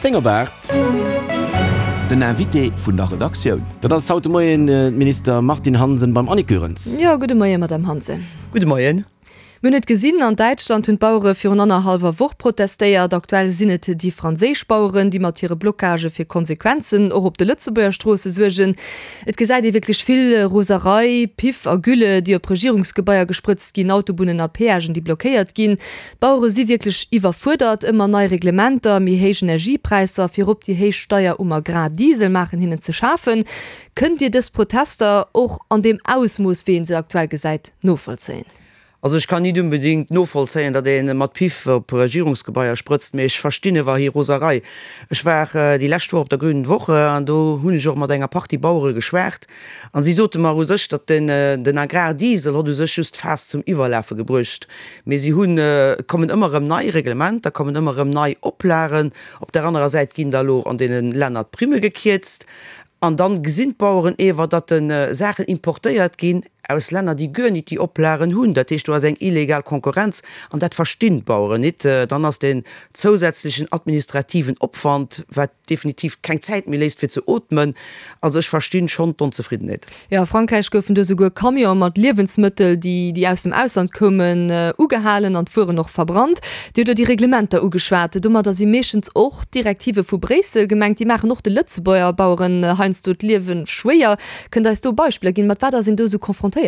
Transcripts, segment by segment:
10 op 8. Den Invité vun der Redaktioun. Dat ass haut de Moien d'Minister Martine Hansen beim Annick Goerens. Jo, gudde Moien, Madamm Hansen. Gudde Moien. Mir hunn et gesinn, an Däitschland hunn d'Bauere virun annerhallwer Woch protestéiert. Aktuell sinn et déi franséisch Baueren, déi mat hire Blockagë fir Konsequenzen och op de Lëtzebuerger Stroosse suergen. Et gesäit ee wierklech vill Roserei, Piff a Gülle, déi op Regierungsgebaier gesprëtzt ginn, Autobunnen a Peagen, déi blockéiert ginn. D'Bauere si wierklech iwwerfuerdert. Ëmmer nei Reglementer, méi héich Energiepräisser, virop déi héich Steier um Agrardiesel maachen hinnen ze schafen. Kënnt Dir dës Protester och an deem Ausmooss, wéi ee se aktuell gesäit, novollzéien? Also ech kann nit unbedingt novollzéien, datt ee mat Piff op Regierungsgebaier sprëtzt, mee ech verstinn ewer hir Roserei. Ech war déi lescht Woch op der Grünen Woche an do hunn ech och mat enger Partie Bauere geschwat an si sote mer u sech, datt den den Agrardiesel hott u sech just d'Faass zum Iwwerlafe gebruecht, mee si hunn, et kommen ëmmer erëm nei Reglementer, kommen ëmmer erëm nei Oplagen. Op der anerer Säit ginn da lo an deene Länner d'Primme gekierzt an dann gesinn d'Baueren ewer, datt de Saachen importéiert ginn, aus Länner, déi guer nit déi Oplagen hunn. Dat heescht, do ass eng illegal Konkurrenz an dat verstinn d'Baueren nit. Dann ass deen zousätzlechen administrativen Opwand, wat definitiv keng Zäit méi léisst fir ze ootmen. Also ech verstinn schonn d'Onzefriddenheet. Jo, a Frankräich goufen do souguer Camionë mat Liewensmëttel, déi déi aus dem Ausland koumen, ugehalen an d'Wueren och verbrannt. Dir hutt elo déi Reglementer ugeschwat. Domadder si meeschtens och d'Direktive vu Bréissel gemengt. Déi maachen och de Lëtzebuerger Baueren heiansdo d'Liewe schwéier. Kënnt Der eis do Beispiller ginn? Mat wat ass een do esou confrontéiert?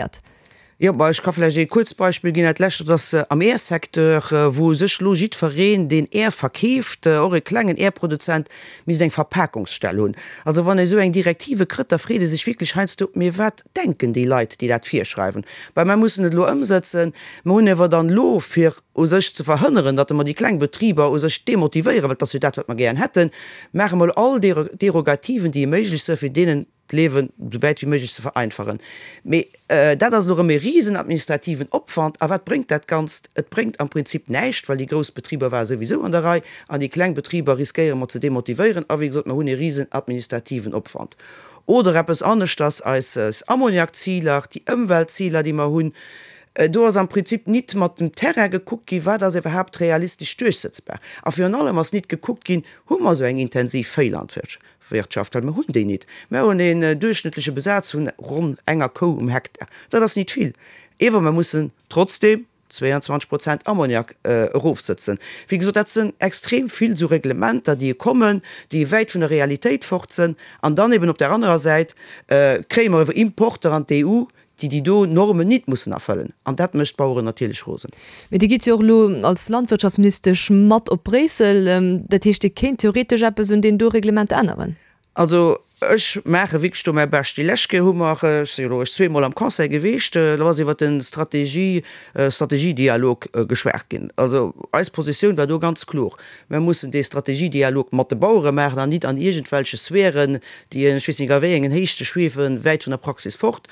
Jo, bah, ech ka vläicht ee kuerzt Beispill ginn. Dat lescht, dat ass am Air-Secteur, wou u sech elo jiddwereen, deen Air verkeeft, och e klengen Air-Produzent, misst eng Verpakungsstell hunn. Also wann ee esou eng Direktive krëtt, da freet ee sech wierklech heiansdo, Mee wat denken déi Leit, déi dat virschreiwen? Bah, mer mussen et elo ëmsëtzen. Mer hunn ewer dann elo, fir u sech ze verhënneren, datt mer déi kleng Betriber u sech demotivéieren, well et ass jo dat, wat mer gären hätten, maache mer elo all Derogativen, déi méiglech sinn, fir deenen d'Liewen esou wäit wéi méiglech ze vereinfachen. Mee dat ass elo erëm e risen administrativen Opwand. A wat bréngt dat Ganzt? Et bréngt am Prinzip näischt, well déi grouss Betriber ware souwisou an der Rei an déi kleng Betriber riskéiere mer ze demotivéieren. A wéi gesot, mer hunn e risen administrativen Opwand. Oder eppes aneschters, eis Ammoniakziler, déi Ëmweltziler, déi mer hunn, do ass am Prinzip nit mat dem Terrain gekuckt ginn, wat ass iwwerhaapt realistesch duerchsetzbar. A virun allem ass nit gekuckt ginn, hu mer esou eng intensiv Véilandwirtschaft? Wirtschaft, well mer hunn déi nit. Mer hunn een duerchschnëttleche Besaz vun ronn enger Kou um Hektar. Dat ass nit vill. Ewer mer mussen trotzdeem 22 Prozent Ammoniak erofsëtzen. Wéi gesot, dat sënn extrem vill esou Reglementer, déi kommen, déi wäit vun der Realitéit fort sënn. An dann eben op där anerer Säit kréie mer ewer Importer an d'EU, déi déi do Normen nit mussen erfëllen, an dat mécht d'Baueren natierlech rosen. Mee Dir gitt jo och elo als Landwirtschaftsministesch mat op Bréissel. Dat heescht, Dir kéint theoretesch eppes un deenen do Reglementer änneren? Also ech maache wierklech do mäi Bescht. Déi lescht Kéier hu mer, ech si jo elo eréischt zweemol am Conseil gewiescht, do ass iwwert de Strategie, Strategiedialog geschwat ginn. Also eis Positioun war do ganz kloer, Mer mussen dee Strategiedialog mat de Bauere maachen an nit an iergendwelche Sphären, déi ech weess nit a wéi engen Héichte schwiewen, wäit vun der Praxis fort.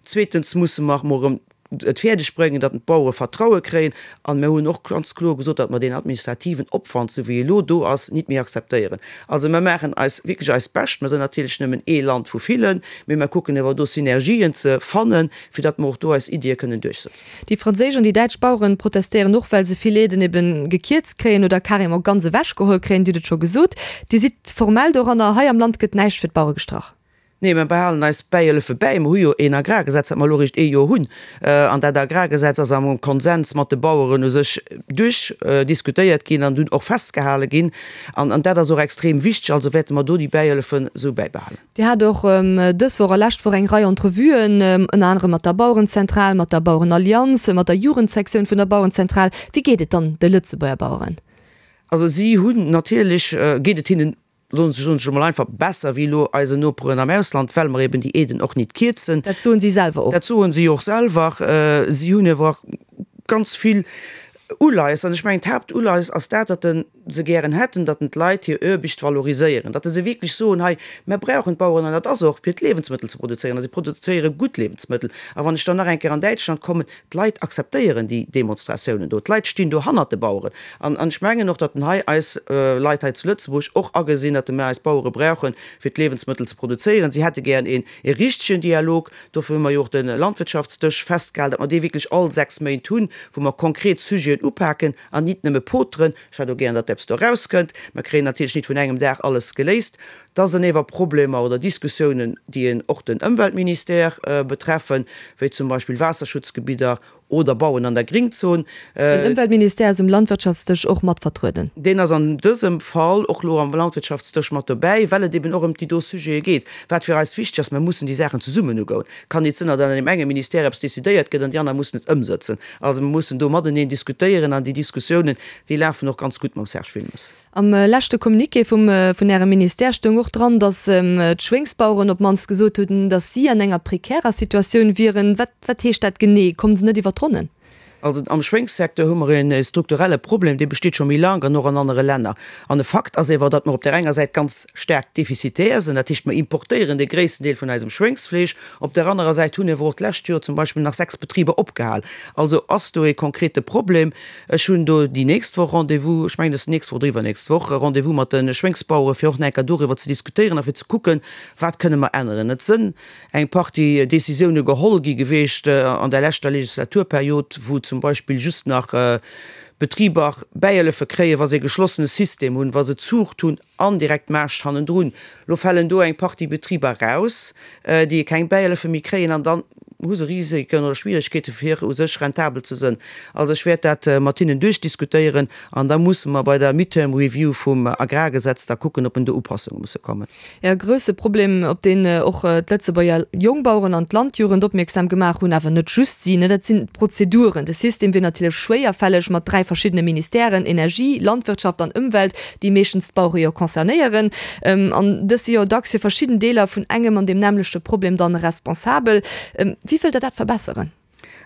Zweetens musse mer mol erëm et fäerdeg bréngen, datt d'Bauere Vertraue kréien. An mer hunn och ganz kloer gesot, datt mer deen administrativen Opwand, esou wéi e lo do ass, nit méi akzeptéieren. Also mer maachen eis wierklech eist Bescht. Mer sinn natierlech nëmmen ee Land vu villen, mee mer kucken ewer do Synergien ze fannen, fir datt mer och do eis Iddie kënnen duerchsetzen. Déi franséisch an déi däitsch Baueren protestéieren och, well se vill Aiden eben gekierzt kréien oder carrément ganz ewechgeholl kréien. Dir hutt et scho gesot, Dir sidd formell doranner. Hei am Land gëtt näischt fir d'Bauere gestrach. Nee, mer behalen eis Bäihëllefe bäi. Mer hu jo een Agrargesetz, dat mer elo eréischt ee Joer hunn. An dat Agrargesetz ass am Konsens mat de Baueren u sech duerchdiskutéiert ginn an dunn och festgehale ginn. An dat ass och extrem wichteg. Also wäerte mer do déi Bäihëllefen esou bäibehalen. Dir hat och dës Woch a lescht Woch eng Rei Entrevuen, ënner anerem mat der Bauerenzentral, mat der Bauerenallianz, mat der Jugendsektioun vun der Bauerenzentral. Wéi geet et dann de Lëtzebuerger Baueren? Also si hunn natierlech, geet et hinnen Soen ech elo mol einfach, besser wéi elo eisen Noperen am Ausland, well mer eben déi Aiden och nit kierzen. Dat soen si selwer och. Dat soen si och selwer. Si hunn awer och ganz vill Uleies. An ech mengen, d'Haaptuleies ass dat, datt se gären hätten, datt d'Leit hir Aarbecht valoriséieren, datt se wierklech soen, hei, mer brauchen d'Baueren, an dat ass och fir d'Liewensmëttel ze produzéieren, a si produzéiere gutt Liewensmëttel. A wann ech dann nach eng Kéier an Däitschland kommen, D'Leit akzeptéieren déi Demonstratiounen do. D'Leit stinn do hannert de Baueren. An ech mengen och, datt en hei eis Leit hei zu Lëtzebuerg och agesinn, datt mer eis Bauere brauchen, fir d'Liewensmëttel ze produzéieren. Si hätte gären een richtegen Dialog. Dofir hu mer jo och de Landwirtschaftsdësch festgehalen, datt mer dee wierklech all 6 Méint hunn, wou mer konkret Sujeten upaken an nit nëmme poteren. Ech hätt och gären, datt. eppes do erauskënnt. Mer kréien natierlech nit vun engem Dag alles geléist. Da sënn ewer Problemer oder Diskussiounen, déi en och den Ëmweltministère betreffen, wéi zum Beispill Waasserschutzgebidder oder Bauen an der Gringzon. Den Ëmweltministère ass um Landwirtschaftsdësch och mat vertrueden. Deen ass an dësem Fall och elo am Landwirtschaftsdësch mat dobäi, well et eben och ëm déi do Sujete geet. Wat fir eis wichteg ass, Mer mussen déi Saachen zesummen ugoen. Kann nit sënn, datt an deem enge Ministère eppes decidéiert gëtt an déi aner mussen et ëmsëtzen. Also mer mussen do mateneen diskutéieren an déi Diskussiounen, déi lafen och ganz gutt mam Serge Wilmes. Am leschte Communiqué vum vun Ärem Ministère stoung och dran, datt d'Schwéngsbaueren op d'mannst gesot hunn, datt si an enger prekärer Situatioun wieren. Wat wat heescht dat genee? Kommen se net iwwer d'Ronnen? Also am Schwéngssecteur hu mer e strukturelle Problem, dee besteet scho méi laang an och an anere Länner. An e Fakt ass ewer, datt mer op där enger Säit ganz staark defizitär sinn, dat heescht mer importéieren de gréissten Deel vun eisem Schwéngsfleesch. Op där anerer Säit hunn ewer och d'lescht Joer zum Beispill nach 6 Betriber opgehal. Also ass do e konkrete Problem. Ech hunn do déi nächst Woch Rendez-vous, ech mengen et ass d'nächst Woch oder iwwernächst Woch, Rendez-vous mat de Schwéngsbauere fir och nach eng Kéier doriwwer ze diskutéieren a fir ze kucken, wat kënne mer änneren. Et sënn eng Partie Décisioune geholl gi geweecht an der leschter Legislaturperiod, wou zum Beispill just nach Betriber Bäihëllefe kréien, wa se e geschlossene System hunn, wa se Zuucht hunn an direkt Maascht hannendrun. Lo falen do eng Partie Betriber raus, déi keng Bäihëllefe méi kréien an dann hu se Risiken oder Schwieregkeete fir u sech rentabel ze sënn. Also ech wäert dat mat hinnen duerchdiskutéieren an da musse mer bei der Midterm Review vum Agrargesetz da kucken, ob en do Upassunge musse kommen. E grousse Problem, op deen och d'Lëtzebuerger Jongbaueren an d'Landjugend opmierksam gemaach hunn, awer net just si, dat sinn d'Prozeduren. De System wier natierlech schwéierfälleg mat 3 verschiddene Ministèren, Energie, Landwirtschaft an Ëmwelt, déi meeschtens d'Bauere jo concernéieren. An dës si jo dacks fir verschidden Deeler vun engem an deem nämmlechte Problem dann responsabel. Wéi wëllt Der dat verbesseren?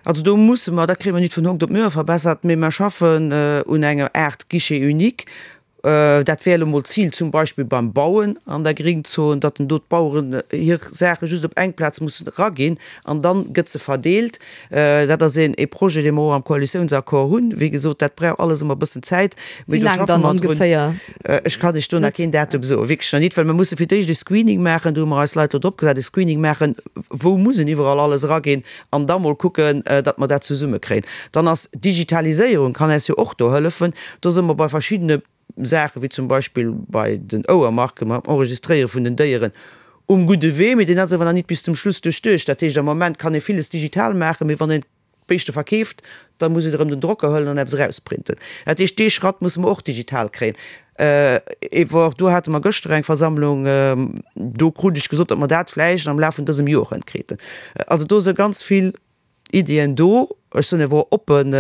Also do musse mer, dat kréie mer nit vun hokt op muer verbessert, mee mer schaffen un enger Aart Guichet unique. Dat wär elo mol d'Zil zum Beispill beim Bauen an der Gringzon, datt den do d'Baueren hir Saache just op eng Plaz mussen eraginn an dann gëtt se verdeelt. Dat ass een ee Projet, dee mer och am Koalitiounsaccord hunn. Wéi gesot, dat brauch alles ëmmer e bëssen Zäit, mee do Wéi laang schaffe dann mer drun. ongeféier? Ech kann lech do nach keen Datum soen, wierklech nach nit, well mer musse fir d'éischt e Screening maachen, do hu mer eis Leit elo drop gesat, e Screening maachen, wou muss en iwwerall alles eraginn an da mol kucken, datt mer dat zesummekréien. Dann ass d'Digitaliséierung, kann eis jo och do hëllefen. Do si mer bei verschiddene Saachen, wéi zum Beispill bei den Ouermarken, beim Enregistréiere vun den Déieren, um gudde Wee, mee deen ass awer nach nit bis zum Schluss duerchduecht. Dat heescht, am Moment kann ee villes digital maachen, mee wann een d'Béischte verkeeft, da muss een erëm den Drocker huelen an eppes erausprinten. Dat heescht, dee Schratt musse mer och digital kréien. Ewer do hate mer gëschter eng Versammlung, do krut ech gesot, datt mer dat vläicht am Laf vun dësem Joer hënkriiten. Also do si ganz vill Iddien do. Ech sinn ewer oppen,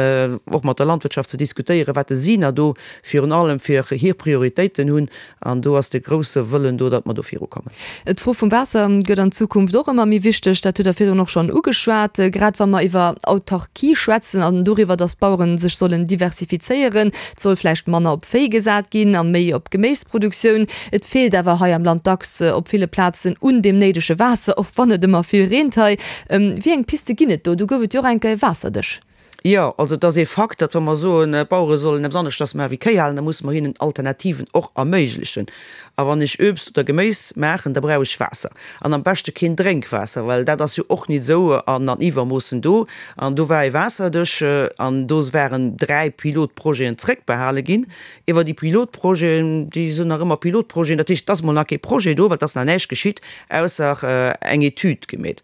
och mat der Landwirtschaft ze diskutéieren, wat si na do virun allem fir hir Prioritéiten hunn. An do ass de grousse Wëllen do, datt mer do virukommen. D'Fro vum Waasser gëtt an Zukunft och ëmmer méi wichteg. Dat hutt Der virdrun och schonn ugeschwat. Grad wa mer iwwer Autarkie schwätzen an doriwwer, datt d'Bauere sech sollen diversifizéieren. Et soll vläicht manner op Véi gesat ginn a méi op Geméisproduktioun. Et feelt awer hei am Land dacks op ville Plazen un deem néidege Waasser, och wann et ëmmer vill reent hei. Wéi eng Piste ginn et do? Do gouf et jo och eng Kéier e Waasserdësch. Jo, also et ass ee Fakt, datt wa mer soen, d'Bauere sollen eppes aneschters maache wéi Kéi halen, da musse mer hinnen Alternativen och erméiglechen. A wann ech Uebst oder Geméis maachen, da brauch ech Waasser. An am beschte keen Drénkwaasser, well dat ass jo och nit esou an an Iwwermoossen do. An do war ee Waasserdësch an do waren 3 Pilotprojeten zréckbehale ginn. Iwwer déi Pilotprojeten, déi sinn nach ëmmer Pilotprojeten, dat heescht, et ass mol nach kee Projet do, well et ass nach näischt geschitt, ausser eng Etüd gemeet.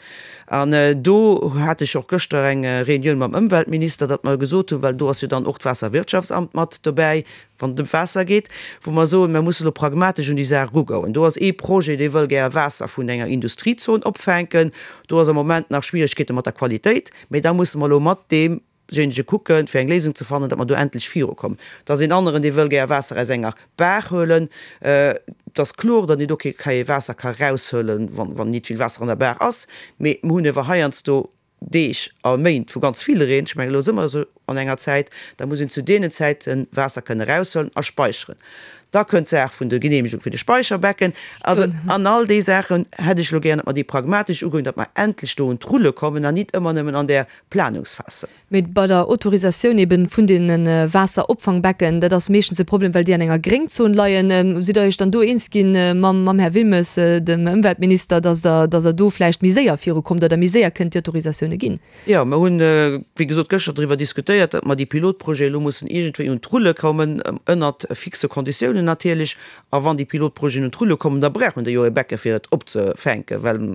An do hat ech och gëschter eng Reunioun mam Ëmweltminister, datt mer gesot hunn, well do ass jo dann och d'Waasserwirtschaftsamt mat dobäi, wann et ëm d'Waasser geet, wou mer soen, mer mussen elo pragmatesch un déi Saach erugoen. Do ass ee Projet, dee wëll gär Waasser vun enger Industriezon opfänken. Do ass am Moment nach Schwieregkeete mat der Qualitéit, mä da musse mer elo mat deem Jenege kucken, fir eng Léisung ze fannen, datt mer do endlech virukommen. Et ass een aneren, dee wëll gär Waasser aus enger Baach huelen. Et ass kloer, datt een do kee Waasser ka raushuelen, wann nit vill Waasser an der Baach ass. Mee mer hunn ewer heiansdo Deeg a Méint vu ganz vill Reen. Ech mengen, elo si mer esou an enger Zäit, da muss een zu deenen Zäite Waasser kënne raushuelen a speicheren. Da kënnt d'Saach vun der Genehmegung fir de Speicherbecken. Also an all déi Saachen hätt ech elo gären, datt mer déi pragmatesch ugoen, datt mer endlech do un d'Rulle kommen an nit ëmmer nëmmen an där Planungsphas sinn. Mee bei der Autorisatioun eben vun deene Waasseropfangbecken, dat ass meeschtens e Problem, well déi an enger Gréngzon leien. Sidd Der Iech dann do eens ginn mam Här Wilmes, dem Ëmweltminister, datt Der, datt Der do vläicht méi séier virukommt oder méi séier kënnt déi Autorisatioune ginn? Jo, mer hunn, wéi gesot, gëschter driwwer diskutéiert, datt mer déi Pilotprojete elo mussen iergendwéi un d'Rulle kommen, ënnert fixe Konditiounen natierlech. A wann déi Pilotprojeten un d'Rulle kommen, da brauchen déi jo e Becke fir et opzefänken, well,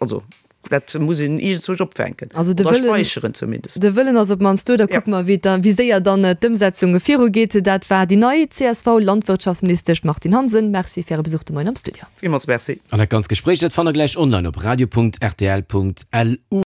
also, dat muss een iergendzwousch opfänken Also de oder Wëllen, späicheren zumindest. de Wëllen ass op d'mannst do. Da kucke mer, wéi da, wéi séier dann d'Ëmsetzung virugeet. Dat war déi nei CSV-Landwirtschaftsministesch Martine Hansen. Merci fir Äre Besuch de Moien am Studio. Villmools Merci. An dat ganzt Gespréich, dat fannt der gläich online op radio.rtl.lu.